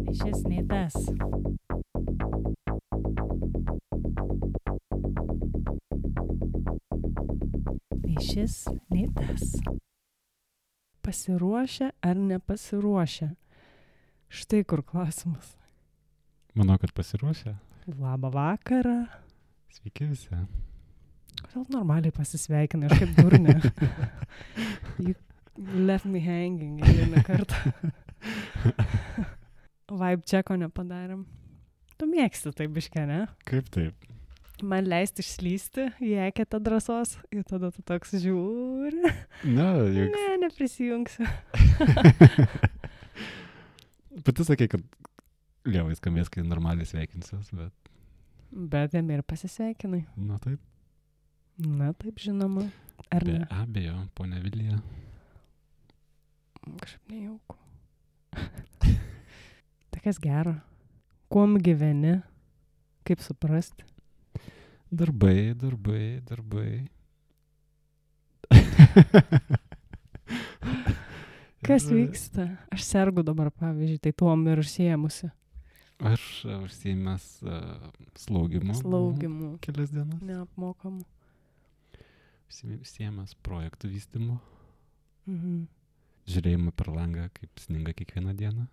Nei šis, nei tas. Nei šis, nei tas. Pasiruošę ar nepasiruošę? Štai kur klausimas. Manau, kad pasiruošę. Labą vakarą. Sveiki visi. Kodėl normaliai pasisveikinai, aš kaip durnė. You left me hanging vieną kartą. Vibe checko nepadarėm. Tu mėgsti tai biškę, ne? Kaip taip? Man leisti išslysti, į eketą drąsos ir tada tu toks žiūri. Ne, juk. Ne, neprisijungsiu. Pati sakė, kad lievai skambės, kai normaliai sveikinsiuos, bet... Bet jam ir pasisveikinai. Na taip. Na taip, žinoma. Ar Be ne? abejo, ponia Vilija. Kažkaip nejauku. Tai kas gero? Kuom gyveni? Kaip suprasti? Darbai. Kas Ir vyksta? Aš sergu dabar, pavyzdžiui, tai tuom ir užsiėmusi. Aš užsiėmęs slaugimu. Slaugimu. Kelias dienas. Neapmokamu. Užsiėmęs projektų vystymu. Mhm. Žiūrėjimą per langą, kaip sninga kiekvieną dieną.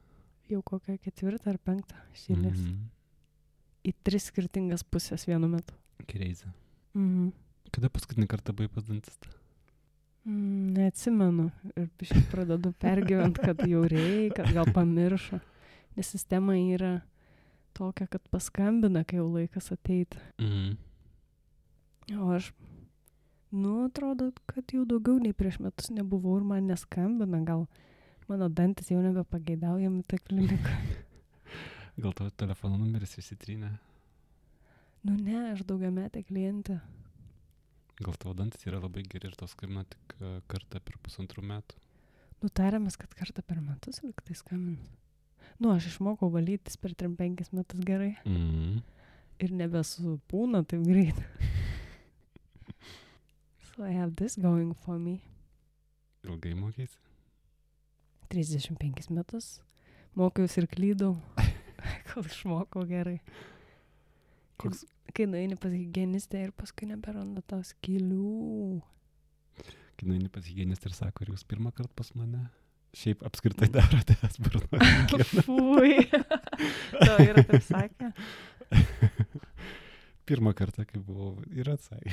Jau kokią 4 ar 5 šilės. Į 3 skirtingas pusės vienu metu. Crazy. Mhm. Kada paskutinį kartą buvai pas dantistą? Neatsimenu. Ir biškai pradedu pergyvent, kad jau reikia, kad gal pamiršo. Nes sistema yra tokia, kad paskambina, kai jau laikas ateiti. O aš, atrodo, kad jau daugiau nei prieš metus nebuvau ir man neskambina. Gal mano dantis jau nebepageidaujami tą kliniką. Gal tavo telefono numeris išsitrynė? Ne, aš daugiametė klientė. Gal tavo dantis yra labai geri ir tau skambina tik kartą per 1,5 metų? Tarėmės, kad kartą per metus liktai skambina. Aš išmokau valytis per 3-5 metus gerai. Ir nebesupūna taip greit. So I have this going for me. Ilgai mokeisi? 35 metus. Mokiausi ir klydau, kol išmokau gerai. Koks? Kai nueini pas higienistę ir paskui neberanda tau skylių. Kai nueini pas higienistę ir sako, ar jūs pirmą kartą pas mane? Šiaip apskritai darote burno higieną. Fui. Tau yra taip sakė? Pirmą kartą, kai buvau, ir atsakė.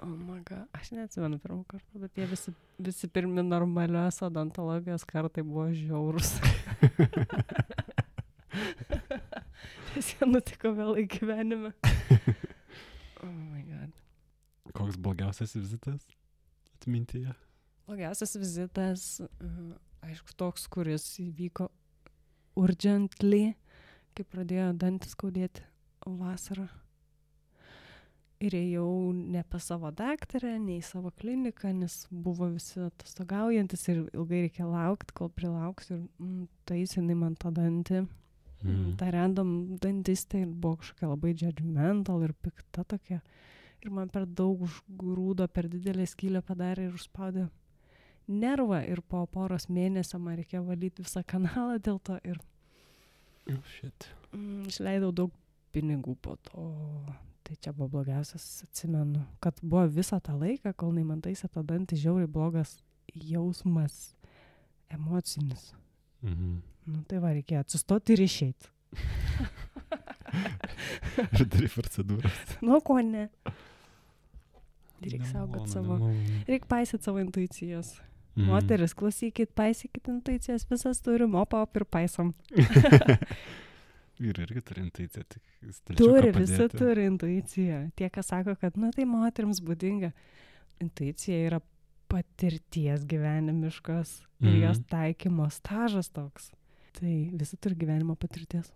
Oh my god, aš neatsimenu pirmą kartą, bet jie visi pirmi normalios odontologijos kartai buvo žiaurus. Nes jie nutiko vėlai gyvenime. Oh my god. Koks blogiausias vizitas atmintyje? Blogiausias vizitas, aišku, toks, kuris įvyko urgently, kai pradėjo dantis skaudėti vasarą. Ir ėjau ne pas savo daktarę, ne į savo kliniką, nes buvo visi atostogaujantis ir ilgai reikia laukti, kol prilauksiu. Ir taisinai man tą dantį. Ta random dantistė buvo kažkokia labai judgmental ir pikta tokia. Ir man per daug užgrūdo, per didelę skylę padarė ir užspaudė nervą. Ir po poros mėnesio man reikėjo valyti visą kanalą dėl to. Ir išleidau daug pinigų po to. Tai čia buvo blogiausias, atsimenu, kad buvo visą tą laiką, kol man taisė tą dantį, žiauriai blogas jausmas emocinis. Tai va, reikėjo atsistoti ir išeiti. Ir darai procedūras. Ko ne? Reikia saugot savo. Reikia paisyti savo intuicijas. Moteris, klausykit, paisykit intuicijas, visas turim, op ir paisom. Vyrai irgi turi intuiciją, tik visi turi intuiciją. Tie, kas sako, kad, tai moterims būdinga. Intuicija yra patirties gyvenimiškos ir jos taikymo stažas toks. Tai visi turi gyvenimo patirties.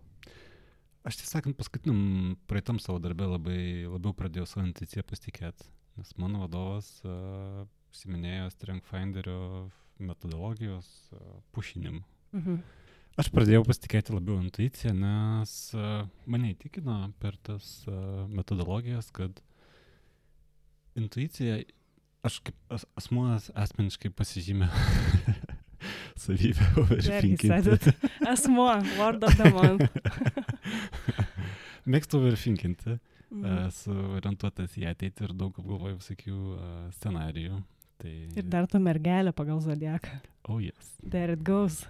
Aš tiesąkant, paskutiniam praeitam savo darbę labiau pradėjau savo intuiciją pasitikėti, nes mano vadovas užsiminėjo Strength Finderio metodologijos pušinimu. Aš pradėjau pasitikėti labiau intuiciją, nes mane įtikino per tas metodologijas, kad intuicija aš kaip asmuo asmeniškai pasižymė savybę overthinkinti. Asmuo, word of the month. Mėgstu overthinkinti. Esu orientuotas į ateitį ir daug apgalvoju visokių scenarijų. Tai... Ir dar tu mergelė pagal zodiaką. Oh yes. There it goes.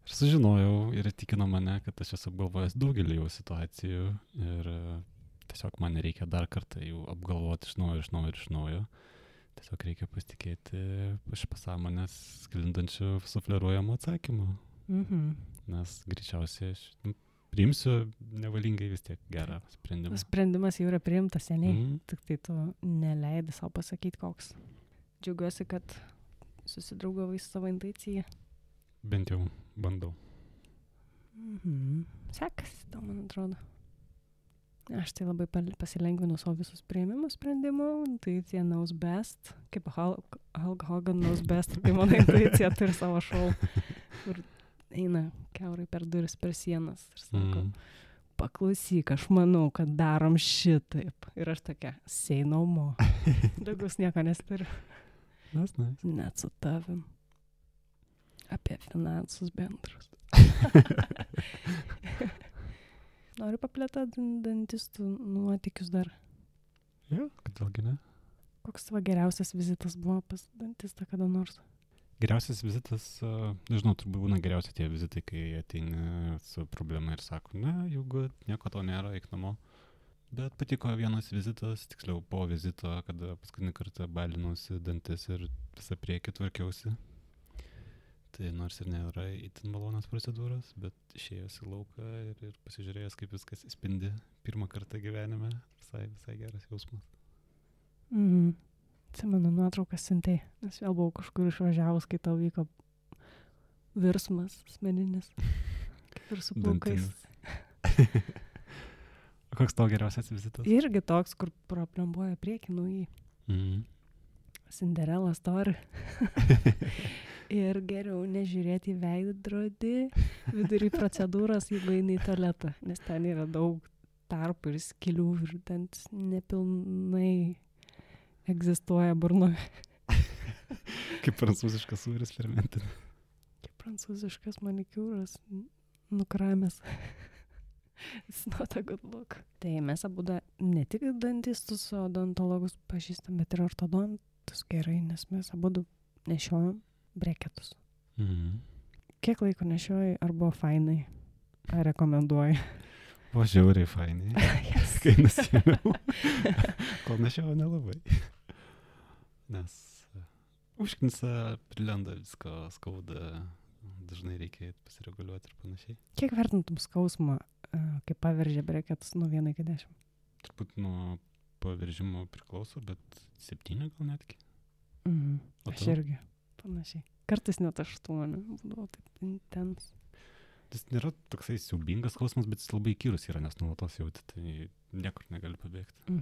Ir sužinojau ir įtikino mane, kad aš esu apgalvojęs daugelį jau situacijų ir tiesiog man reikia dar kartą jų apgalvoti iš naujo. Tiesiog reikia pasitikėti iš pasąmonės sklindančių sufleruojamų atsakymų. Nes greičiausiai aš priimsiu nevalingai vis tiek gerą sprendimą. Sprendimas jau yra priimtas seniai, tik tai tu neleidi savo pasakyti koks. Džiaugiuosi, kad susidraugavai su savo intuicija. Bent jau bandau. Sekasi, tau, man atrodo. Aš tai labai pasilengvinu savo visus priėmimų sprendimų. Intuicija knows best. Kaip Hulk Hogan knows best. Tai mano intuicija turi savo šou. Kur eina kiaurai per duris, per sienas. Ir sako, paklausyk, aš manau, kad darom šitaip. Ir aš tokia, say no more. Daugiau nieko nesturiu. Net su tavim. Apie finansus bendrus. Noriu paplėtoti dantistų nuotykius dar. Jo, kodėlgi ne? Koks tavo geriausias vizitas buvo pas dantistą kada nors? Geriausias vizitas, nežinau, turbūt būna geriausia tie vizitai, kai ateini su problema ir sako, ne, jeigu nieko to nėra, eik namo. Bet patiko vienas vizitas, tiksliau po vizito, kada paskutinį kartą balinausi dantis ir visą priekį tvarkiausi. Tai nors ir nėra itin malonios procedūros, bet išėjęs į lauką ir pasižiūrėjęs, kaip viskas įspindi pirmą kartą gyvenime, visai geras jausmas. Atsimenu nuotraukas siuntei, nes vėl buvau kažkur išvažiavus, kai tau vyko virsmas asmeninis, kaip ir su plaukais. Koks tavo geriausias vizitas? Irgi toks, kur proplembuoja priekį naujai. Cinderella story. Ir geriau nežiūrėti į veidrodį vidury procedūros, jeigu eini į tualetą, nes ten yra daug tarpų ir skilių ir ten nepilnai egzistuoja burnoje. Kaip prancūziškas sūris fermentinė. Kaip prancūziškas manikiūras nukramęs. It's not a good look. Tai mes abudu ne tik dantistus, odontologus pažįstam, bet ir ortodontus gerai, nes mes abudu nešiojam breketus. Kiek laiko nešiojai, ar buvo fainai? Ar rekomenduoji? Buvo žiauriai fainai. Yes. Kai nusiėmiau. Kol nešiojau nelabai. Nes užknisa, prilenda visko, skauda, dažnai reikia pasireguliuoti ir panašiai. Kiek vertintum skausmą, kai paveržė breketus nuo 1 iki 10? Turbūt nuo paveržimo priklauso, bet 7 gal netgi. Aš irgi. Panašiai. Kartais net 8, būdavo taip intens. Tas nėra toksai siaubingas skausmas, bet jis labai įkyrus yra, nes nuolatos jauti, tai niekur negali pabėgti.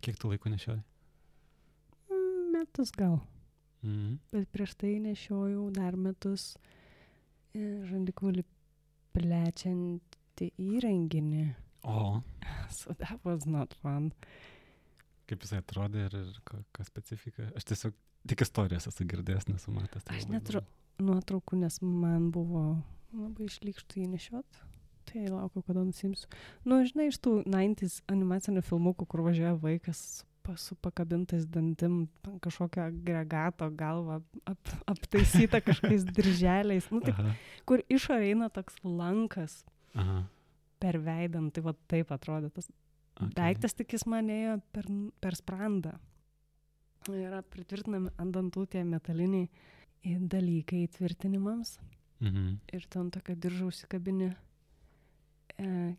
Kiek tu laiko nešiojai? Metus gal. Bet prieš tai nešiojau dar metus žandikaulį plečiantį įrenginį. O. So that was not fun. Kaip jisai atrodė ir ką specifika? Aš tiesiog tik istorijas esu girdėjęs, nesu matęs. Aš neturiu nuotraukų, nes man buvo labai išlykštų jį nešiot. Tai laukiu, kada nusimsiu. Žinai, iš tų 90s animacinių filmukų, kur važiuoja vaikas su pakabintais dantim, kažkokio agregato galva aptaisyta kažkokiais dirželiais. Taip, kur išorė eina toks lankas per veidą. Tai va taip atrodė tas daiktas, tik jis man ėjo per sprandą. Yra pritvirtinami ant dantų tie metaliniai dalykai tvirtinimams. Ir ten tokia diržą užsikabinė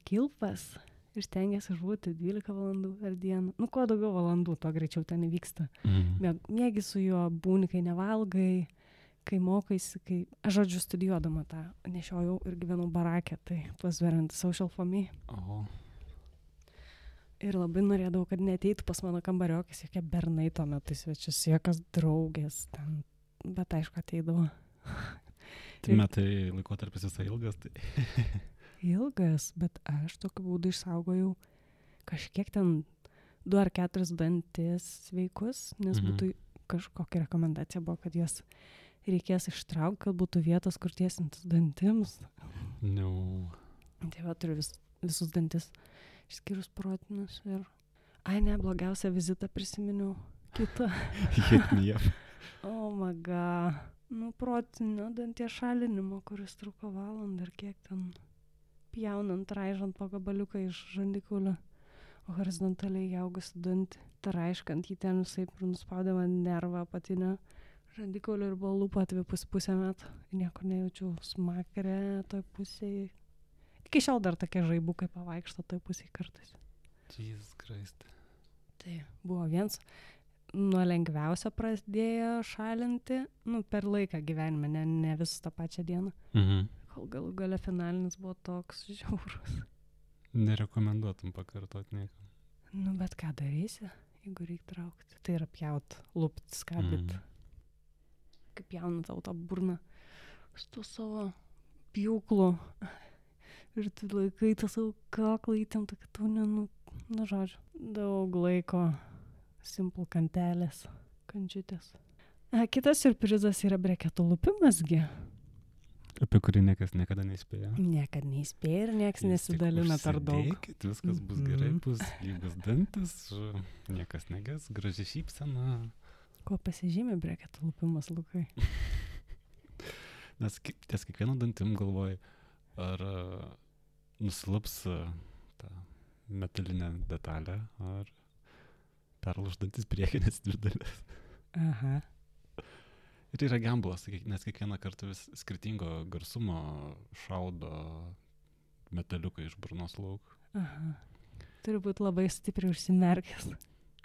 kilpas ir stengiasi išbūti 12 valandų per dieną. Kuo daugiau valandų, to greičiau ten įvyksta. Mėgi su juo būni, kai nevalgai, kai mokaisi, kai... Aš žodžiu studijuodama tą nešiojau ir gyvenau barake, tai was very social for me. Ir labai norėdavau, kad neateitų pas mano kambariokis, jokie bernai tuo metu svečius, jokios draugės ten, bet aišku ateidavo. Tai metai laikotarpis visai ilgas, tai... Ilgas, bet aš tokiu būdu išsaugojau kažkiek ten 2 ar 4 dantis sveikus, nes Mhm. būtų kažkokia rekomendacija buvo, kad jas reikės ištraukti, kad būtų vietos, kur tiesintis dantims. No. Tai va, turiu visus dantis, išskyrus protinius ir... Ai, ne, blogiausią vizitą prisiminiau. Kitą. Hit me up. Oh my god. Nu, protinio danties šalinimo, kuris truko valandą ir kiek ten pjaunant, raižant po gabaliuką iš žandikaulio horizontaliai įaugusi dantį. Raiškant jį ten visai nuspaudė man nervą apatinę žandikaulio ir buvo lūpa pusę metų. Nieko nejaučiau smakrę toj pusėje. Iki šiol dar tokie žaibukai pavaikšto toj pusėje kartais. Jesus Christ. Tai buvo viens nuo lengviausio pradėjo šalinti, per laiką gyvenime, ne visus tą pačią dieną. Mhm. Kol galų gale finalinis buvo toks žiaurus. Nerekomenduotum pakartot niekam. Bet ką darysi, jeigu reikia traukti? Tai yra pjaut, lupt, skabit. Kaip pjauna tau tą burną su tuo savo pjūklu. Ir tu laikai tą savo kaklą įtemptą, kad tu žodžiu, daug laiko. Simple kantelės, kančiutės. Kitas siurprizas yra breketų lupimasgi. Apie kurį niekas niekada neįspėjo. Niekad neįspėja ir niekas nesidalina per daug. Užsidėkit, viskas bus gerai, bus lygus dantis, niekas neges, graži šypsena. Kuo pasižymi breketų lupimas, Lukai? Nes ties kiekvieno dantim galvoji, ar nusilaps tą metalinę detalę, ar perlūždantis priekinės 2 dalis. Aha. Ir yra gamblas, nes kiekvieną kartą vis skirtingo garsumo šaudo metaliuką iš burnos lauk. Aha. Turi būti labai stipriai užsimerkęs.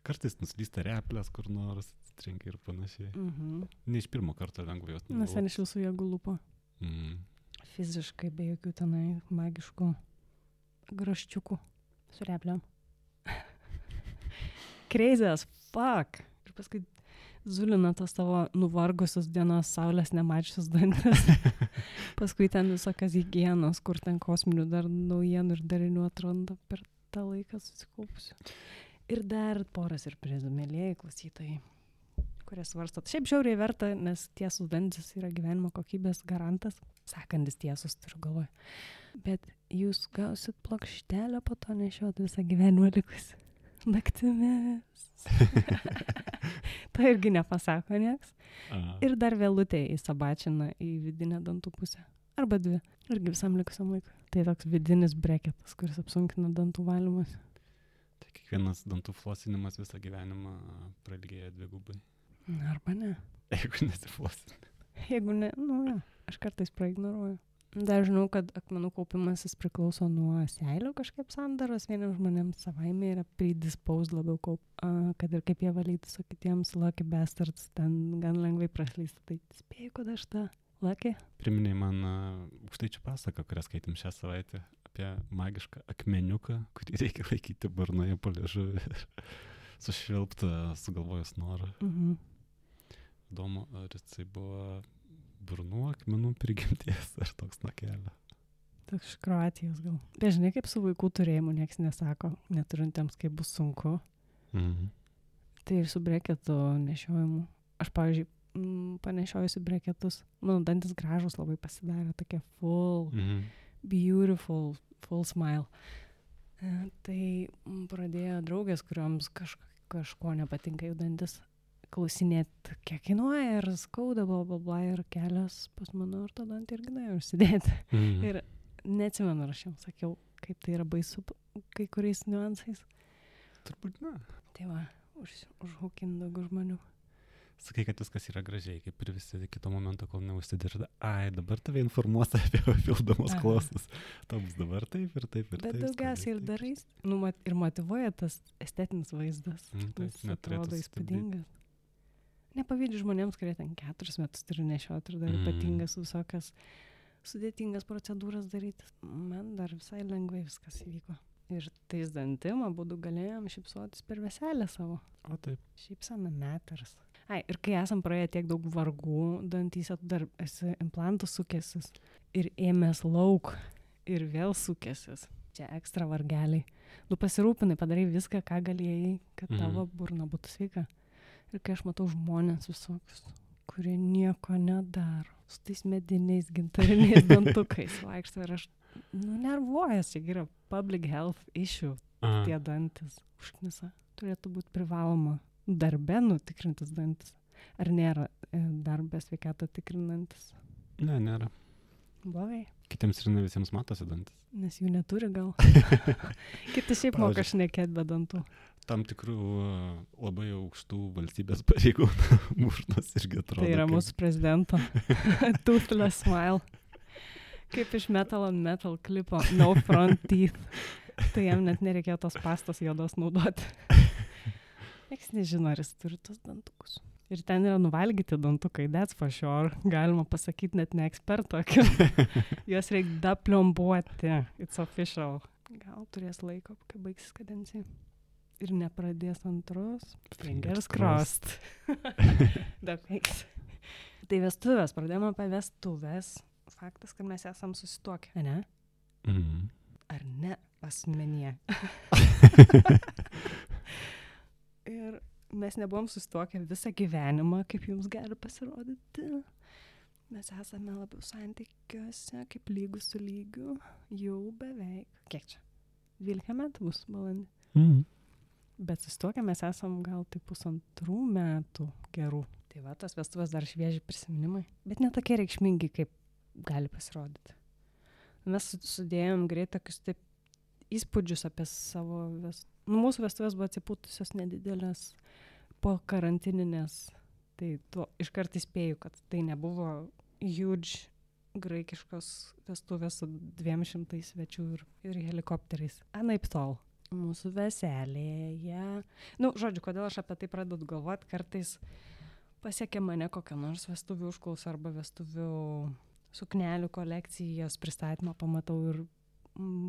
Kartais nuslysta replės kur nors, atsitrenkia ir panašiai. Mhm. Ne iš pirmo karto lengva jos Nes ten iš visų jėgų lupo. Fiziškai, be jokių tenai magiškų graščiukų su repliam. Crazy as fuck. Ir paskui zulina tos tavo nuvargusius dienos saulės nemačiusius dantis. Paskui ten visokias higienos, kur ten kosminių dar naujienų ir darinių atranda per tą laiką susikaupusiu. Ir dar porą siurprizų, mėlėjai klausytojai, kurie svarstot. Šiaip žiauriai verta, nes tiesus dantis yra gyvenimo kokybės garantas. Sakantis tiesus, turiu galvoje. Bet jūs gausit plokštelę po to nešiot visą gyvenimą likusi. Naktimis. To irgi nepasako nieks. Ir dar vėlutė įsabačina į vidinę dantų pusę. Arba 2. Irgi visam likusiam laikui. Tai toks vidinis breketas, kuris apsunkina dantų valymas. Tai kiekvienas dantų flosinimas visą gyvenimą prailgėja 2 gubai. Arba ne. Jeigu nesiflosini. Jeigu ne, ja, aš kartais praignoruoju. Dar žinau, kad akmenų kaupimasis priklauso nuo seilių kažkaip sandaros. Vieniems žmonėms savaime yra predisposed labiau kad ir kaip jie valytis, o kitiems lucky bastards ten gan lengvai praslysta. Tai spėju, kad aš tą lucky. Priminėjai man aukštaičių pasaką, kurią skaitėm šią savaitę, apie magišką akmeniuką, kurį reikia laikyti burnoje po liežuvį ir sušvilptą sugalvojus norą. Mhm. Įdomu, ar jisai buvo burnų akmenų prigimties ar toks nuo kelio. Toks iš Kroatijos gal. Žinai, kaip su vaikų turėjimu nieks nesako, neturintiems kaip bus sunku. Mhm. Tai ir su breketų nešiojimu. Aš, pavyzdžiui, panešiojusi breketus. Mano dantis gražus labai pasidarė, tokie full, beautiful, full smile. Tai pradėjo draugės, kurioms kažko nepatinka jų dantis, klausinėti, kiek kainuoja ir skauda, bla, ir kelias pas mano ortodontą irgi nuėjo užsidėti. Ir neatsimenu, aš jums sakiau, kaip tai yra baisu kai kuriais niuansais. Turbūt ne. Tai va, užhukint daugiau žmonių. Sakai, kad viskas yra gražiai, kaip ir visi iki to momento, kol neužsidirda. Ai, dabar tave informuos apie papildomus klausus. Tau bus dabar taip ir taip ir taip. Bet daugiausiai ir darai, ir motyvuoja tas estetinis vaizdas. Jis atrodo įspūdingas. Nepavydžiu žmonėms, kurie ten 4 metus turi nešioti ir dar ypatingas visokias sudėtingas procedūras daryti. Man dar visai lengvai viskas įvyko. Ir tais dantim abudu galėjom šypsotis per veselę savo. O taip. Šypsena matters. Ai, ir kai esam praėję tiek daug vargų dantyse, tu dar esi implantų sukęsis ir ėmės lauk ir vėl sukęsis. Čia ekstra vargeliai. Tu pasirūpinai, padarai viską, ką galėjai, kad tavo burna būtų sveika. Ir kai aš matau žmonės visokius, kurie nieko nedaro, su tais mediniais gintariniais dantukais vaikšto ir aš, nervuojas, čia yra public health issue, tie dantis užknisa. Turėtų būti privaloma darbe nutikrintis dantis. Ar nėra darbę sveikatą tikrinantis? Ne, nėra. Blogai. Kitiems ir ne visiems matosi dantis. Nes jų neturi gal. Kiti šiaip moka šnekėt be dantų. Tam tikrų labai aukštų valstybės pareigūnų burnos irgi atrodo. Tai yra mūsų prezidento toothless smile. Kaip iš Metal on Metal klipo No Front Teeth. Tai jam net nereikėjo tos pastos juodos naudoti. Niekas nežino, ar jis turi tos dantukus. Ir ten yra nuvalgyti dantukai, that's for sure. Galima pasakyti net ne eksperto. Juos reikia daplombuoti. It's official. Gal turės laiko, kai baigsis kadencija. Ir nepradės antros. Fingers crossed. Thanks. Tai vestuvės. Pradėjome apie vestuvės. Faktas, kad mes esam susituokę, ne? Ar ne asmenyje? Ir mes nebuvom susituokę visą gyvenimą, kaip jums gali pasirodyti. Mes esame labiau santykiuose, kaip lygus su lygiu, jau beveik. Kiek čia? 12 metų bus balandį. Bet susituokę mes esam gal tai 1,5 metų gerų. Tai va, tos vestuvės dar švieži prisiminimai. Bet ne tokie reikšmingi, kaip gali pasirodyti. Mes sudėjom greit tokius taip įspūdžius apie savo mūsų vestuvės buvo atsipūtusios nedidelės po karantininės. Tai iškart įspėju, kad tai nebuvo huge graikiškos vestuvės su 200 svečių ir helikopteriais. Anaip tol. Mūsų veselėje. Žodžiu, kodėl aš apie tai pradedu galvoti, kartais pasiekia mane kokią nors vestuvių užklausą arba vestuvių suknelių kolekcijos pristatymą pamatau ir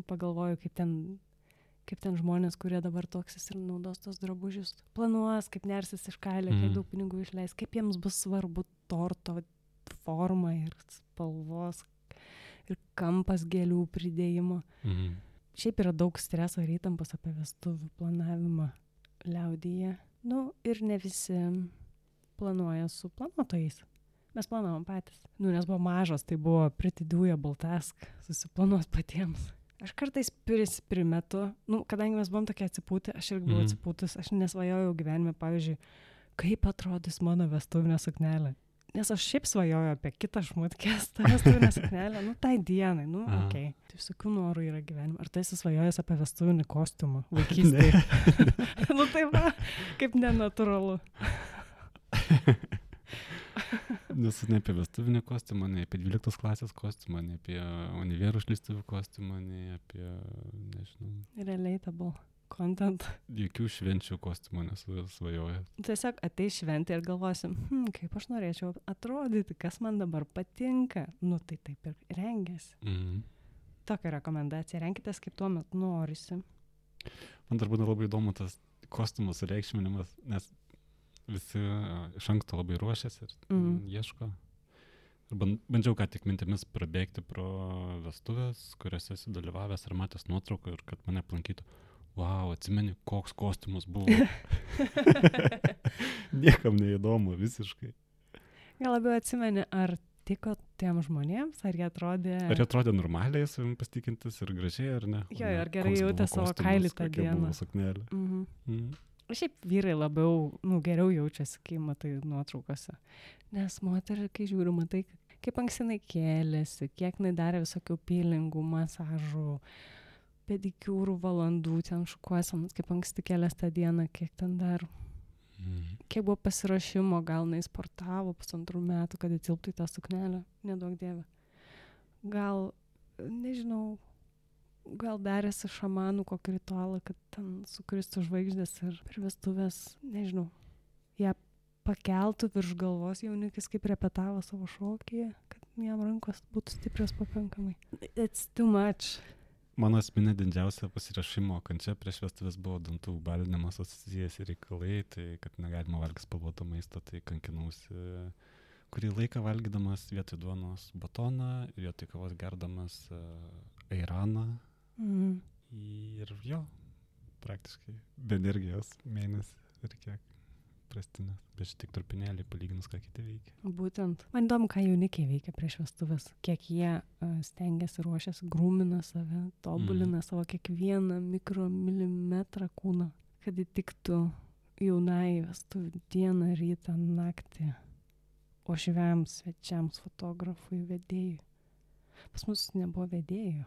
pagalvoju, kaip ten žmonės, kurie dabar toksis ir naudos tos drabužius, planuos, kaip nersis iš kailio, kiek daug pinigų išleis, kaip jiems bus svarbu torto forma ir spalvos ir kampas gėlių pridėjimo. Šiaip yra daug streso ir įtampos apie vestuvių planavimą liaudyje. Ir ne visi planuoja su planuotojais. Mes planavom patys. Nes buvo mažos, tai buvo pretty doable task susiplanuos patiems. Aš kartais primetu, kadangi mes buvom tokie atsipūti, aš irgi buvau atsipūtus, aš nesvajojau gyvenime, pavyzdžiui, kaip atrodys mano vestuvinė suknelė. Nes aš šiaip svajoju apie kitą šmutkės, tą vestuvinę suknelę, tai dienai, okei. Tai visokių norų yra gyvenime. Ar tu esi svajojęs apie vestuvinį kostiumą vaikystėje? Tai va, kaip nenatūralu. Nes ne apie vestuvinį kostiumą, ne apie 12 klasės kostiumą, ne apie univerų išleistuvių kostiumą, ne apie, nežinau. Relatable content. Jokių švenčių kostiumų nesu svajojęs. Tiesiog ateis šventė ir galvosim, kaip aš norėčiau atrodyti, kas man dabar patinka. Tai taip ir rengiasi. Tokia rekomendacija. Renkitės, kaip tuo metu norisi. Man dar būna labai įdomu tas kostiumų sureikšminimas, nes visi iš anksto labai ruošiasi ir ieško. Ir bandžiau ką tik mintimis prabėgti pro vestuvės, kuriuose esi dalyvavęs ir matęs nuotrauką ir kad mane aplankytų. Wow, atsimeni, koks kostiumas buvo. Niekam neįdomu, visiškai. Gal labiau atsimeni, ar tiko tiem žmonėms, ar jie atrodė... Ar jie atrodė normaliai, savim pasitikintis ir gražiai, ar ne? Jo, ar gerai jautė savo kailį tą dieną. Šiaip vyrai labiau, geriau jaučiasi, kai matai nuotraukose. Nes moterį, kai žiūri, matai, kaip anksinai kėlėsi, kiek jinai darė visokių peelingų, masažų, pedikiūrų valandų, ten šukuosenos, kaip anksti kėlės tą dieną, kiek ten dar. Kiek buvo pasirašymo, gal jinai sportavo 1,5 metų, kad įtilptų į tą suknelę, nedaug dievė. Gal, nežinau, gal darėsi šamanų kokį ritualą, kad ten sukristų žvaigždės ir per vestuvės, nežinau, ją pakeltų virš galvos jaunikis, kaip repetavo savo šokyje, kad jam rankos būtų stiprios pakankamai. It's too much. Mano asmeninė didžiausia pasirašymo kančia prieš vestuvės buvo dantų balinimas asociacijas ir reikalai, tai kad negalima valgyti spalvoto maisto, tai kankinausi kurį laiką valgydamas vietoj duonos batoną, vietoj kavos gerdamas airaną. Ir jo, praktiškai be energijos mėnesį ir kiek prastinės. Bet šitik trupinėlį palyginus, ką kiti veikia. Būtent. Man įdomu, ką jaunikiai veikia prieš vestuvės. Kiek jie stengiasi, ruošiasi, grūmina save, tobulina savo kiekvieną mikromilimetrą kūną, kad įtiktų jaunai vestuvių dieną, rytą, naktį, ošviams, svečiams, fotografui, vedėjui. Pas mus nebuvo vedėjų.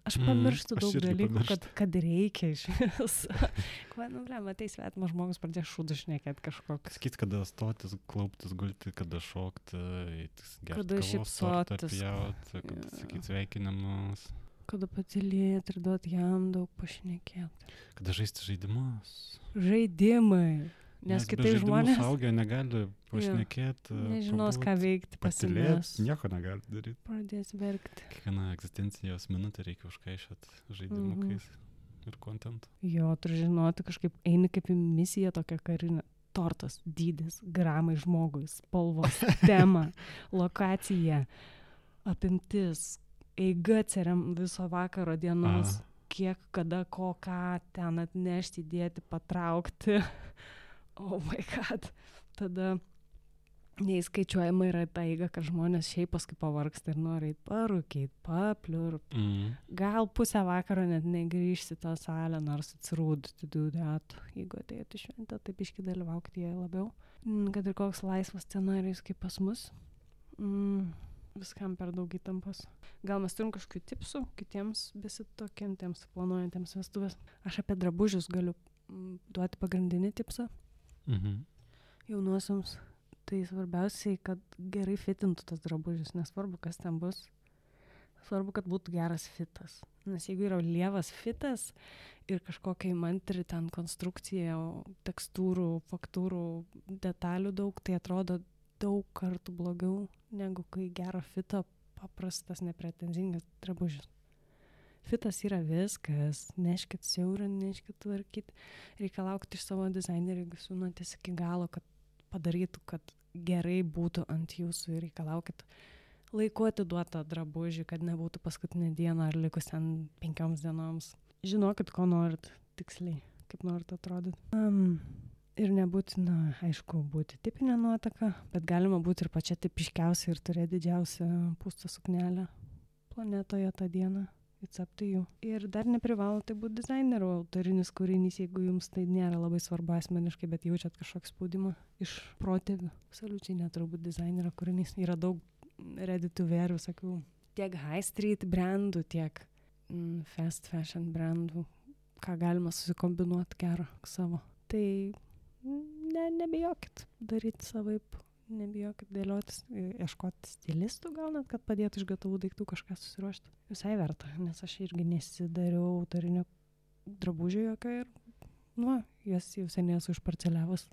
Aš pamirštu daug dalykų, kad reikia iš vis. Matai, svetimas žmogus pradėjo šūdų šnekėti kažkoks. Sakyt, kada stotis, klauptis, gulti, kada šokti, kada šypsotis, kada sakyt sveikinimus. Kada patylėti ir duoti jam daug pašnekėti. Kada žaisti žaidimus. Žaidimai. Nes kitai žmonės suaugę negali pašnekėti. Nežinos, ką veikti, pasimės. Nieko negali daryti. Pradės verkti. Kiekvieną egzistencijos minutę reikia užkaišyti žaidimukais ir kontentu. Jo, turi žinoti, kažkaip eini kaip į misiją tokią karinę. Tortas, dydis, gramai žmogui, spalvos, tema, lokacija, apimtis, eiga ceriam viso vakaro dienos, kiek, kada, ko, ką ten atnešti, dėti, patraukti. Oh my god. Tada neįskaičiuojama yra ta eiga, kad žmonės šiaip paskui pavargsta ir nori parūkyti, papliurp. Gal pusę vakaro net negrįžti tą salę, nors atsirūdti dudat. Jeigu atėjate šventę, tai biškį dalyvaukti jai labiau. Kad ir koks laisvas scenarijus kaip pas mus. Viskam per daug įtampos. Gal mes turim kažkokių tipsų kitiems besitokiantiems, planuojantiems vestuvės. Aš apie drabužius galiu duoti pagrindinį tipsą. Jaunuosiams. Tai svarbiausiai, kad gerai fitintų tas drabužis, nesvarbu, kas ten bus. Svarbu, kad būtų geras fitas. Nes jeigu yra lievas fitas ir kažkokia įmantri ten konstrukcija, tekstūrų, faktūrų, detalių daug, tai atrodo daug kartų blogiau, negu kai gerą fitą paprastas, nepretenzingas drabužis. Fitas yra viskas, neškit siaurą, neškit tvarkyti, reikia laukti iš savo dizainerio, jeigu siūnatės iki galo, kad padarytų, kad gerai būtų ant jūsų ir reikalaukit laiku atiduotą drabužį, kad nebūtų paskutinę dieną ar likus ten 5 dienoms. Žinokit, ko norit tiksliai, kaip norit atrodyti. Ir nebūtina, aišku, būti tipinė nuotaka, bet galima būti ir pačia tipiškiausia ir turėti didžiausią pūstą suknelę planetoje tą dieną. It's up to you. Ir dar neprivalo tai būti dizainerio autorinis kūrinys, jeigu jums tai nėra labai svarbu asmeniškai, bet jaučiat kažkokį spaudimą iš protėvių. Absoliučiai neturbūt dizainerio kūrinys. Yra daug ready to wear visokių tiek high street brandų, tiek fast fashion brandų, ką galima susikombinuoti gerą savo. Tai nebijokit daryti savaip. Nebijokit dėliotis, ieškoti stilistų gal net, kad padėtų iš gatavų daiktų kažką susiruošti. Visai verta, nes aš irgi nesidariau autorinio drabužio jokio ir, jas jau seniai esu išparceliavus.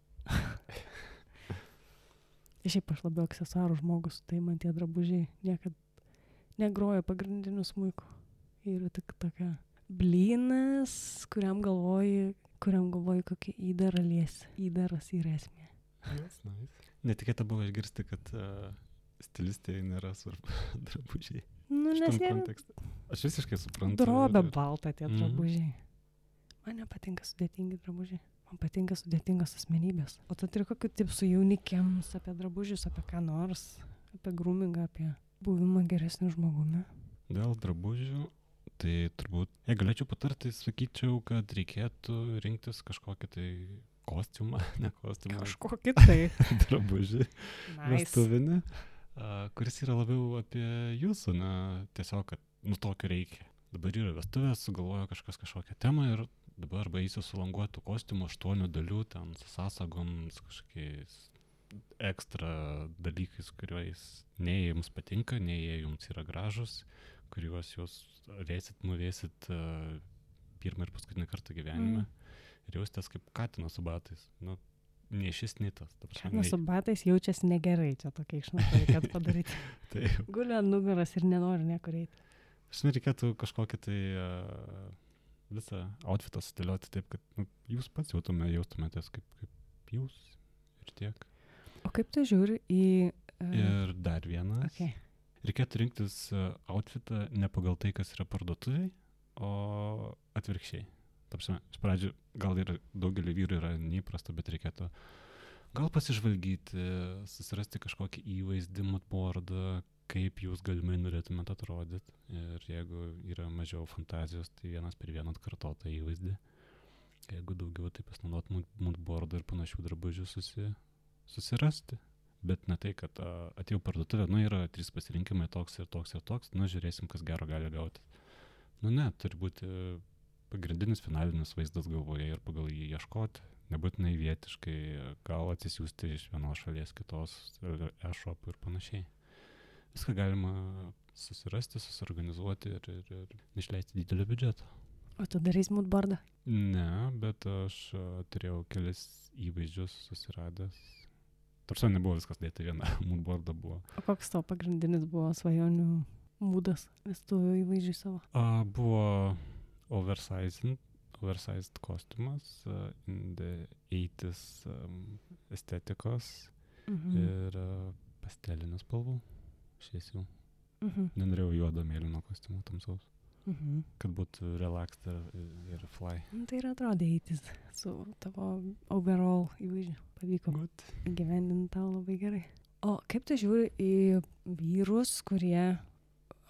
Šiaip aš labiau aksesuarų žmogus, tai man tie drabužiai niekad negroja pagrindiniu smuiku. Ir tik tokia blynas, kuriam galvoji kokį įdarą liesi. Įdaras yra esmė. Nice. Netikėta buvo išgirsti, kad stilistė nėra svarbu drabužiai. Nes jie aš visiškai suprantu. Drobė balta tie drabužiai. Man nepatinka sudėtingi drabužiai. Man patinka sudėtingos asmenybės. O tu turi kokių tipsų jaunikiams apie drabužius, apie ką nors, apie groomingą, apie buvimą geresniu žmogumi? Dėl drabužių, tai turbūt, jei galėčiau patarti, sakyčiau, kad reikėtų rinktis kažkokį tai kostiumą, ne kostiumą. Kažkokį tai. Drabužį. Vestuvinį, kuris yra labiau apie jūsų, tiesiog, kad tokio reikia. Dabar yra vestuvės, sugalvojo kažkokią temą ir dabar arba eisiu sulanguotų kostiumų 8 dalių, ten su sąsagom, su kažkokiais ekstra dalykais, kuriuos nei jums patinka, nei jie jums yra gražus, kuriuos jūs vėsit, muvėsit pirmą ir paskutinį kartą gyvenime. Ir jaustės kaip katinas su batais. Ne šis nitas. Katinas su batais jaučiasi negerai, čia tokia išnauda reikėtų padaryti. Guli ant nugaras ir nenori niekur eiti. Aš reikėtų kažkokį tai visą outfitą sudėlioti taip, kad jūs pats jaustumėtės kaip jūs ir tiek. O kaip tu žiūri į... Ir dar vienas. Okay. Reikėtų rinktis outfitą ne pagal tai, kas yra parduotuviai, o atvirkščiai. Iš pradžių gal ir daugelį vyrų yra neįprasta, bet reikėtų gal pasižvalgyti, susirasti kažkokį įvaizdį, moodboardą, kaip jūs galimai norėtumėte atrodyti. Ir jeigu yra mažiau fantazijos, tai vienas per vieną atkartotą įvaizdį. Jeigu daugiau, tai pasinaudot moodboardą ir panašių drabužių susirasti. Bet ne tai, kad atėjau parduotuvę, yra 3 pasirinkimai, toks ir toks ir toks, žiūrėsim, kas gero gali gauti. Ne, turi būti pagrindinis finalinis vaizdas galvoje ir pagal jį ieškoti, nebūtinai vietiškai, gal atsisiųsti iš vienos šalies kitos, e-shop ir panašiai. Viską galima susirasti, susiorganizuoti ir išleisti didelį biudžetą. O tu darys moodboardą? Ne, bet aš turėjau kelis įvaizdžius susiradęs. Tarsi nebuvo viskas dėta viena, moodboardą buvo. O koks tavo pagrindinis buvo svajonių būdas vestuvių įvaizdžiui savo? Buvo oversized kostiumas, in the 80s estetikos ir pastelinių spalvų, šviesių. Nenorėjau juodo mėlyno kostiumo tamsaus, kad būtų relaxed ir fly. Tai ir atrodė 80s su tavo overall įvaizdžiu. Pavyko įgyvendinti tau labai gerai. O kaip tu žiūri į vyrus, kurie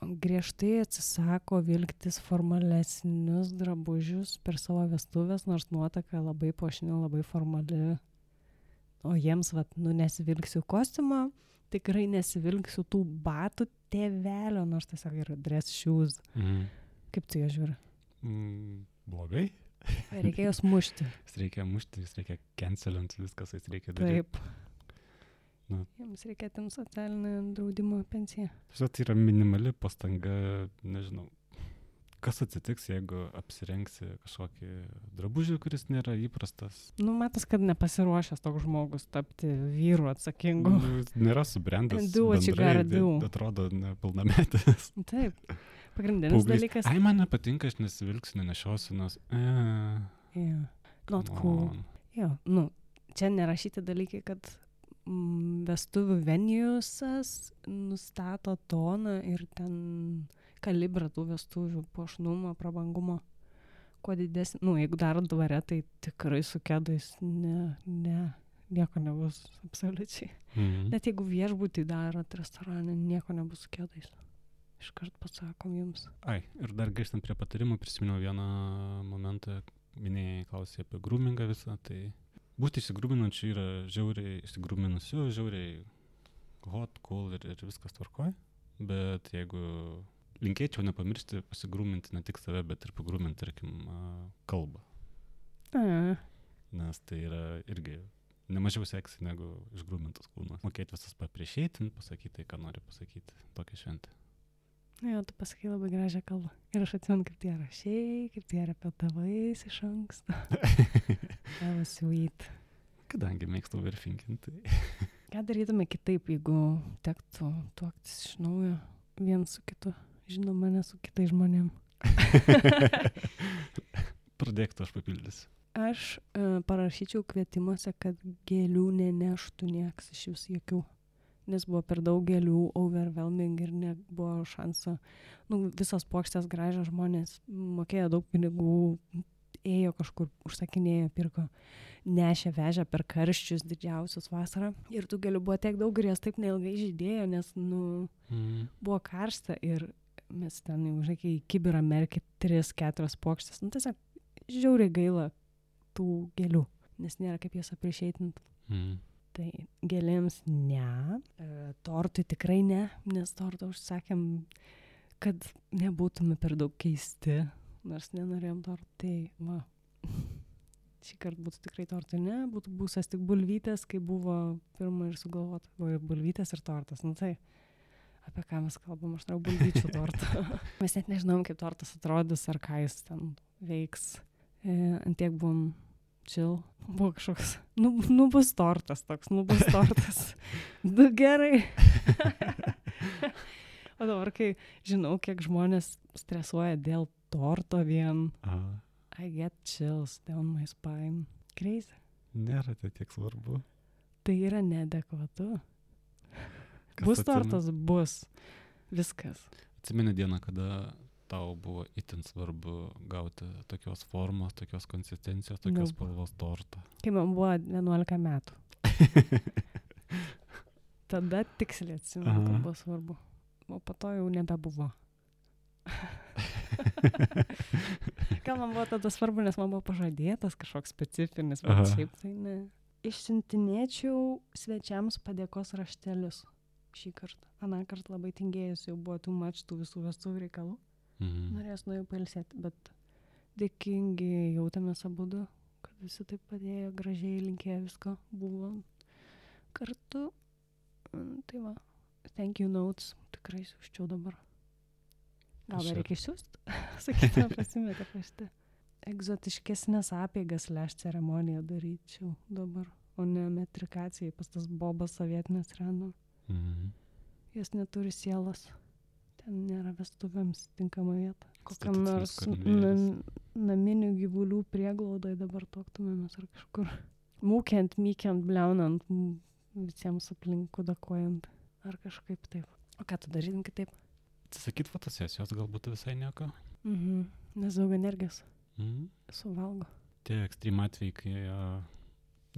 griežtai atsisako vilktis formalesnius drabužius per savo vestuvės, nors nuotaka labai puošni, labai formali. O jiems, nesivilksiu kostiumą, tikrai nesivilksiu tų batų tėvelio, nors tiesiog yra dress shoes. Kaip tu juos žiūri? Blogai. Reikia juos mušti. Jis reikia mušti, jis reikia cancelinti viskas, jis reikia daryti. Taip. Jiems reikia atimti socialinę draudimo pensiją. Tai yra minimali pastanga, nežinau, kas atsitiks, jeigu apsirengsi kažkokį drabužį, kuris nėra įprastas. Matas, kad nepasiruošęs toks žmogus tapti vyru atsakingu. Nėra subrendęs bendrai, atrodo nepilnametis. Taip. Pagrindinis dalykas. Man nepatinka, aš nesivilksiu, nenešiosiu, nes... Not cool. Čia nerašyti dalykai, kad vestuvių venijusas nustato toną ir ten kalibrą tų vestuvių puošnumo, prabangumo. Kuo didesnį, jeigu darot dvare, tai tikrai su kedais nieko nebus absoliučiai. Net jeigu viešbutį darot restorane, nieko nebus su kedais. Iškart pasakom jums. Ir dar grįžtant prie patarimų, prisiminiau vieną momentą, minėjai klausai apie groomingą visą, tai būti išsigrūminančiu yra žiauriai išsigrūminusiu, žiauriai hot, cool ir viskas tvarkoj, bet jeigu linkėčiau nepamiršti pasigrūminti ne tik save, bet ir pagrūminti, tarkim, kalbą. Nes tai yra irgi nemažiau seksy negu išgrūmintas kūnas. Mokėti visas papriešėti, pasakyti tai, ką nori pasakyti, tokią šventę. Tu pasakai labai gražią kalbą. Ir aš atsimenu, kaip tie rašiai, kaip tie repetavais iš anksto. Tavo sweet. Kadangi mėgstu overthinkinti. Ką darytume kitaip, jeigu tektų tuoktis iš naujo vien su kitu, žinoma, ne su kitais žmonėm? Pradėk tu, aš papildysiu. Aš parašyčiau kvietimuose, kad gėlių neneštų nieks iš vis jokių. Nes buvo per daug gėlių, overwhelming ir nebuvo šanso. Visos puokštės gražios, žmonės mokėjo daug pinigų, ėjo kažkur, užsakinėjo, pirko, nešė, vežė per karščius didžiausius vasarą. Ir tų gėlių buvo tiek daug ir jas taip neilgai žydėjo, nes buvo karšta ir mes ten jau, į kibirą merkė 3-4 puokštės. Tiesiog žiauriai gaila tų gėlių, nes nėra kaip jas aprišeitinti. Tai gėlėms ne, tortui tikrai ne, nes tortą užsakėm, kad nebūtume per daug keisti, nors nenorėjom tortų, tai šį kartą būtų tikrai tortui ne, būtų būsas tik bulvytės, kai buvo pirma ir sugalvota, buvo ir bulvytės ir tortas, tai apie ką mes kalbam, aš noriu bulvyčių tortą. Mes net nežinom, kaip tortas atrodys ar ką jis ten veiks, antiek buvom chill, buvo kažkoks, bus tortas toks, bus tortas. Gerai. O dabar, kai žinau, kiek žmonės stresuoja dėl torto vien, I get chills down my spine. Crazy. Nėra tai tiek svarbu. Tai yra neadekvatu. Bus tortas, bus. Viskas. Atsimeni dieną, kada tau buvo itin svarbu gauti tokios formos, tokios konsistencijos, tokios spalvos tortą? Kai man buvo 11 metų. Tada tiksliai atsimenu, kad buvo svarbu. O po to jau nebebuvo. Gal man buvo tada svarbu, nes man buvo pažadėtas kažkoks specifinis, bet šiaip tai ne. Išsiuntinėčiau svečiams padėkos raštelius šį kartą. Aną kartą labai tingėjus, jau buvo too much tų visų vestuvių reikalų. Norėjus nuėjau pailsėti, bet dėkingi jautėmės abudu, kad visi taip padėjo, gražiai linkėjo visko, buvo kartu. Tai va, thank you notes, tikrai siūščiau dabar. Gal dar reikia išsiųsti? Sakytume, pasimetė rašte. Egzotiškesnės apeigas ceremoniją daryčiau dabar, o ne metrikacijai pas tas bobas sovietinės reno. Jos neturi sielos. Ten nėra vestuvėms tinkama vieta. Kokiam nors naminių gyvulių prieglaudai dabar tuoktumėmės ar kažkur. Mūkiant, mykiant, bliaunant, visiems aplink kudakuojant. Ar kažkaip taip. O ką tu darytum kitaip? Atsisakyt fotosesijos galbūt visai nieko. Nes daug energijos suvalgo. Tie ekstrem atvejai, kai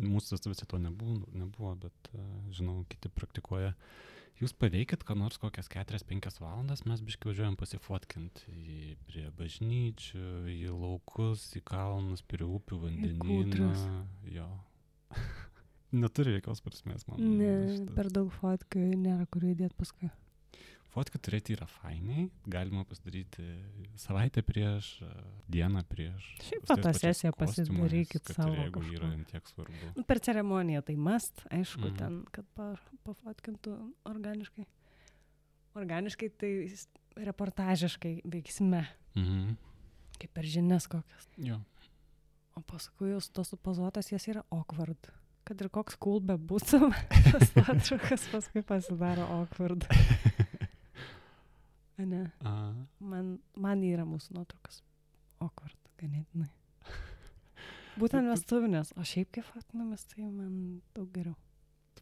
mūsų visi to nebuvo, bet žinau, kiti praktikuoja. Jūs paveikit, ką nors kokias 4-5 valandas, mes biškai važiuojam pasifotkinti prie bažnyčių, į laukus, į kalnus, prie upių, vandenyną. Jo. Neturi jokios prasmės, man. Ne, per daug fotkių nėra kur įdėti paskui. Fotkių turėti yra fainiai, galima pasidaryti savaitę prieš, dieną prieš. Šiaip fotosesiją pasidarykit savo jeigu kažko. yra tiek svarbu. Per ceremoniją tai must, aišku, ten, kad pafotkintų organiškai. Organiškai tai reportažiškai veiksme. Kaip per žinias kokias. Jo. O paskui jau tos supozuotas jas yra awkward. Kad ir koks cool bebūtų, tas nuotraukas paskui pasidaro awkward. Ne. Man yra mūsų nuotraukas awkward, ganėtinai. Būtent vestuvinės, o šiaip kaip fotkinamės, tai man daug geriau.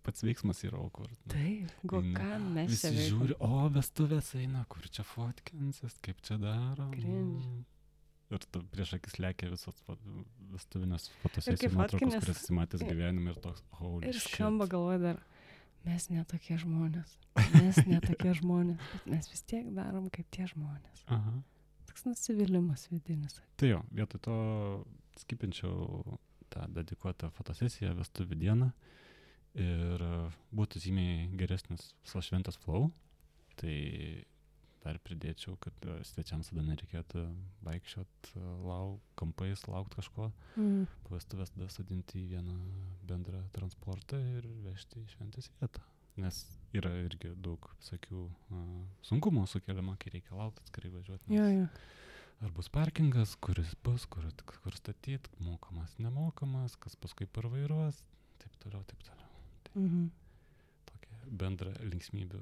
Pats veiksmas yra awkward. Taip, ką mes čia visi žiūri, vestuvės eina, kur čia fotkinsis, kaip čia daro. Ir prieš akis lekia visos vestuvinės fotosesijų nuotraukos, kurias įsimatęs gyvenime ir toks, holy shit. Ir skamba galvoja dar, mes netokie žmonės, bet mes vis tiek darom kaip tie žmonės. Toks nusivylimas vidinis. Tai jo, vietoj to skipinčiau tą dedikuotą fotosesiją vestuvių dieną ir būtų žymiai geresnis visos šventės flow, tai dar pridėčiau, kad svečiams tada nereikėtų vaikščiot kampais, laukt kažko. Po vestuvės tada sodinti į vieną bendrą transportą ir vežti į šventės vietą. Nes yra irgi daug visokių sunkumų sukeliama, kai reikia laukti, atskirai važiuoti. Ar bus parkingas, kuris bus, kur statyt, mokamas, nemokamas, kas paskui parvairuos, taip toliau. Tokia bendra linksmybių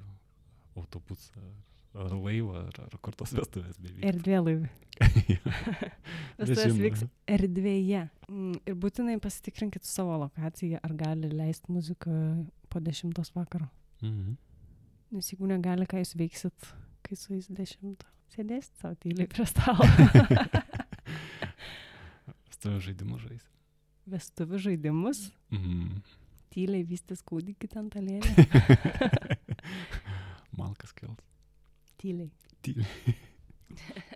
autobusą. Ar laivą, ar kur tos vestuvės bevyks. Erdvėlaivį. Vestuvės vyks erdvėje. Ir būtinai pasitikrinkit savo lokaciją, ar gali leisti muziką po 10 vakaro. Nes jeigu negali, ką jūs veiksit, kai su jais 10, sėdėsit savo tyliai prie stalo. Vestuvių žaidimus žais. Vestuvių žaidimus? Tyliai vystys kūdikį ten talėlį. Malkas kels. Tyliai.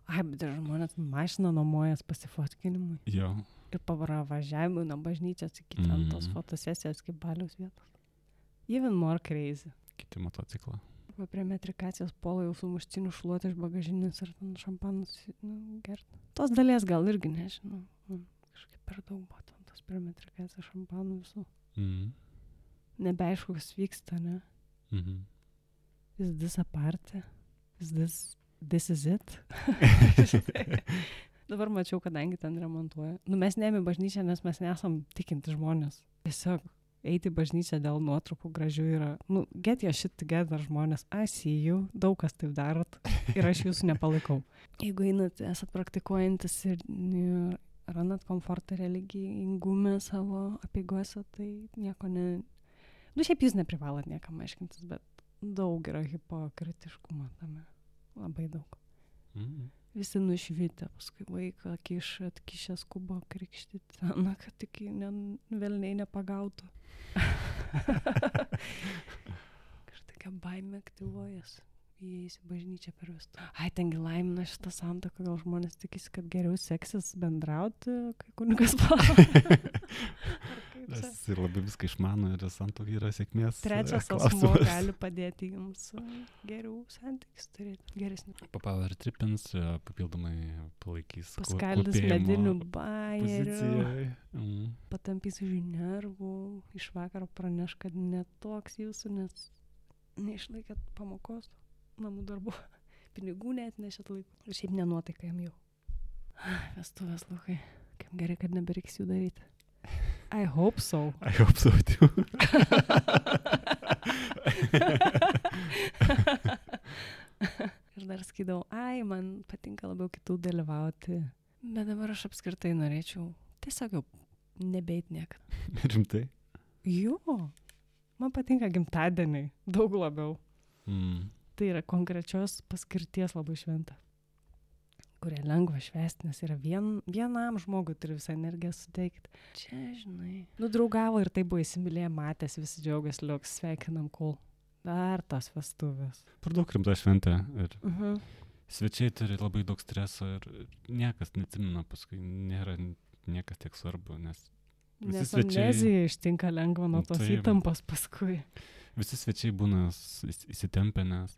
Ai, bet ir žmonės mašiną nuomojas pasifotkinimui. Jo. Ir važiavimui nuo bažnyčios iki ten tos fotosesijos kaip baliaus vietos. Even more crazy. Kiti motociklą. Arba prie metrikacijos polo jau su muštiniu šluoti iš bagažinės ir ten šampanus gerti. Tos dalies gal irgi nežinau. Kažkaip per daug buvo ten tos prie metrikacijos šampanų visų. Nebeaišku, kas vyksta, ne? Is this a party? This is it? Dabar mačiau, kadangi ten remontuoja. Mes neėmė bažnyčią, nes mes nesam tikinti žmonės. Tiesiog eiti į bažnyčią dėl nuotraukų gražių yra. Get your shit together, žmonės. I see you. Daug kas taip darot. Ir aš jūsų nepalaikau. Jeigu einat, esat praktikuojantis ir randat komfortą religingume savo apeigose, tai nieko ne... Šiaip jūs neprivalot niekam aiškintis, bet daug yra hipokritiškumo tame. Labai daug. Visi nušvitę, paskui vaiką atkišę skubo krikštyti, na, kad tik velniai nepagautų. Kažtokia baimė aktyvuojas. Įeis į bažnyčią per visų. Ai, tengi laimina šitą santuoką, gal žmonės tikisi, kad geriau seksis bendrauti, kai kunigas palauk. Jis ir labai viską išmano ir santuoka yra sėkmės. Trečias asmuo gali padėti jums geriau santykius turėti, geresnį. Power tripins, papildomai palaikys paskaldys medinių bairių, poziciją. Patampys už nervų, iš vakaro praneš, kad netoks jūsų, nes neišlaikėt pamokos, namų darbų, pinigų net nešėt laikų. Ir šiaip nenuotaika jam jau. Vestuvės, Lukai, kaip gerai, kad nebereiks jų daryti. I hope so. I hope so too. Ir dar skydavau, man patinka labiau kitų dalyvauti. Bet dabar aš apskritai norėčiau tiesiog jau nebeit niekada. Rimtai? Jo, man patinka gimtadieniai, daug labiau. Tai yra konkrečios paskirties labai šventa, kurie lengva švęsti, nes yra vienam žmogui turi visą energiją suteikti. Čia, žinai, draugavo ir tai buvo įsimylėję, matęs, visi džiaugiasi, liuks, sveikinam, kol. Dar tas vestuvės. Per daug rimta šventė ir svečiai turi labai daug streso ir niekas neatsimena, paskui nėra niekas tiek svarbu, nes amnezija ištinka lengva nuo tos įtampos paskui. Visi svečiai būna įsitempę, nes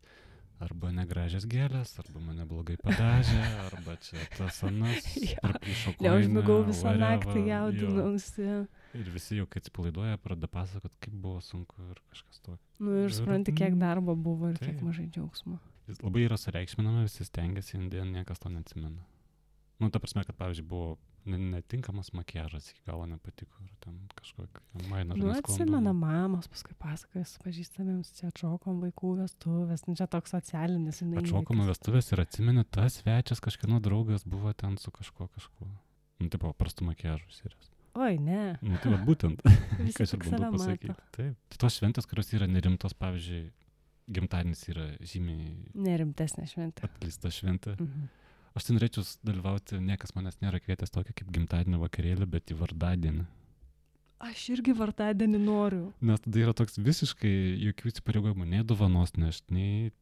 arba negražias gėlės, arba mane blogai padažė, arba čia tas anas, priplyšo koiną, neužmigau visą naktį, jaudinausi. Ir visi jau, kai atsipalaiduoja, pradeda pasakot, kaip buvo sunku ir kažkas tokio. Ir supranti, kiek darbo buvo ir kiek mažai džiaugsmo. Jis labai yra sureikšminama, visi stengiasi, indien niekas to neatsimena. Ta prasme, kad pavyzdžiui buvo netinkamas makiažas, iki galo nepatiko, ir ten kažkokia maina. Atsimena mamos, paskui pasakojas pažįstamiems, čia atšokom vaikų vestuvės, čia toks socialinis. Atšokom vestuvės ir atsimeni, tas svečias kažkieno draugas buvo ten su kažkuo. Taip, paprastų makiažų serijas. Oi, ne. Tai va būtent, ką aš ir bandau pasakyti. Taip. Tai tos šventės, kurios yra nerimtos, pavyzdžiui, gimtadienis yra žymiai nerimtesnė šventė. Atleista šventė. Aš tai norėčiau dalyvauti, niekas manęs nėra kvietęs tokio kaip gimtadienio vakarėlį, bet į vardadienį. Aš irgi vardadienį noriu. Nes tada yra toks visiškai jokių įsipareigojimų, nei dovanos nešti, nei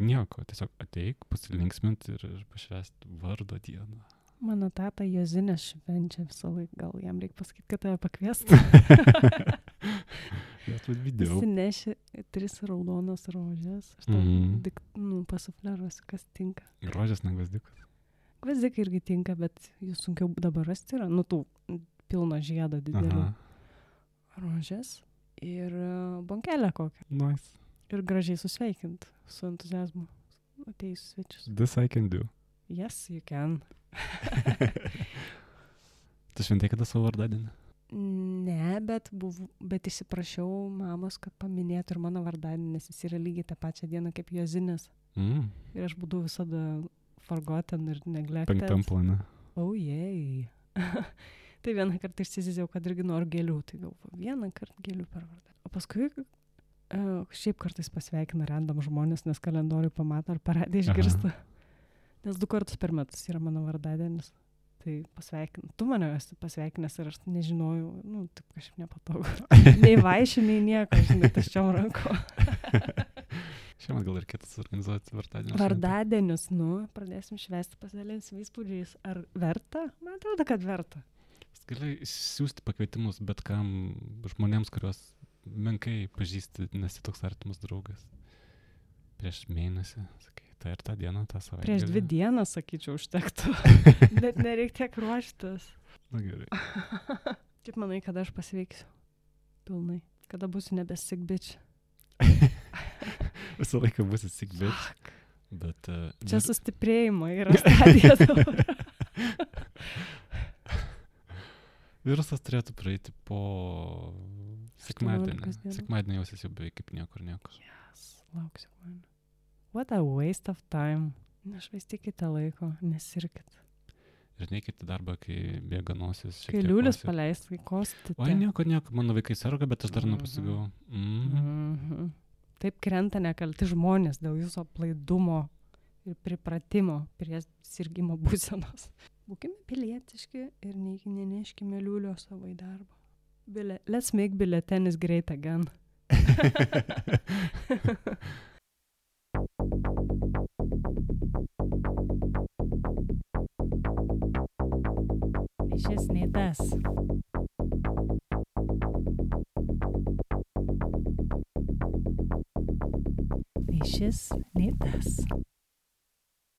nieko. Tiesiog ateik, pasilinksminti ir pašvęsti vardo dieną. Mano tata Jozinės švenčia visą laiką, gal jam reikia pasakyti, kad tave pakviestų. Jis nešė 3 raudonas rožės. Aš tau pasufleruosiu, kas tinka. Rožės, ne gvazdikas. Gvazdikai irgi tinka, bet jų sunkiau dabar rasti yra. Tų pilno žiedo didelių. Rožės ir bonkelę kokią. Nice. Ir gražiai susveikint su entuziazmu atėjus svečius. This I can do. Yes, you can. Tu šventai kada savo vardadienį? Ne, bet įsiprašiau mamos, kad paminėtų ir mano vardadienį, nes jis yra lygiai tą pačią dieną kaip Jozinės. Ir aš būdavau visada forgotten ir neglected. 5 plane. Oh, jei. Tai vieną kartą išsiziziau, kad irgi noriu gėlių. Tai galvoju, vieną kartą gėlių per vardadienį. O paskui šiaip kartais pasveikina random žmonės, nes kalendorių pamato ar paradė išgirsta. Nes 2 kartus per metus yra mano vardadienis. Tai pasveikinu. Tu mane esi pasveikinęs ir aš nežinojau, taip kažkaip nepatogu. Nei vaišių, nei nieko, žinai, taščiom ranko. Šiemet gal ir kitas organizuoti vardadienius. Vardadienius, pradėsim švęsti, pasidalinsim įspūdžiais. Ar verta? Man atrodo, kad verta. Gali siūsti pakvietimus bet kam žmonėms, kuriuos menkai pažįsti, nesi toks artimas draugas. Prieš mėnesį, sakai. Tai ir tą dieną, tą savaitę. Prieš 2 dienas, sakyčiau, užtektų. Net nereikia tiek ruoštis. Na gerai. Kaip manai, kada aš pasveiksiu? Pilnai. Kada būsiu nebe sick bitch? Visą laiką būsi sick bitch. Bet, čia sustiprėjimo yra stadija dabar. Virusas turėtų praeiti po sekmadienį. Sekmadienį jausis jau beveik kaip niekur. Yes, lauksiu man. What a waste of time. Nešvaistykite laiko, nesirkit. Ir neikite darbą, kai bėga nosis. Kai liulis paleis, kai kostite. Oi, nieko, mano vaikai serga, bet aš dar nepasigau. Taip krenta nekalti žmonės dėl jūsų aplaidumo ir pripratimo prie sirgimo būsenos. Būkime pilietiški ir neneškime liūlio savo į darbą. Let's make biuletenis great again. Nei šis, nei tas. Nei šis, nei tas.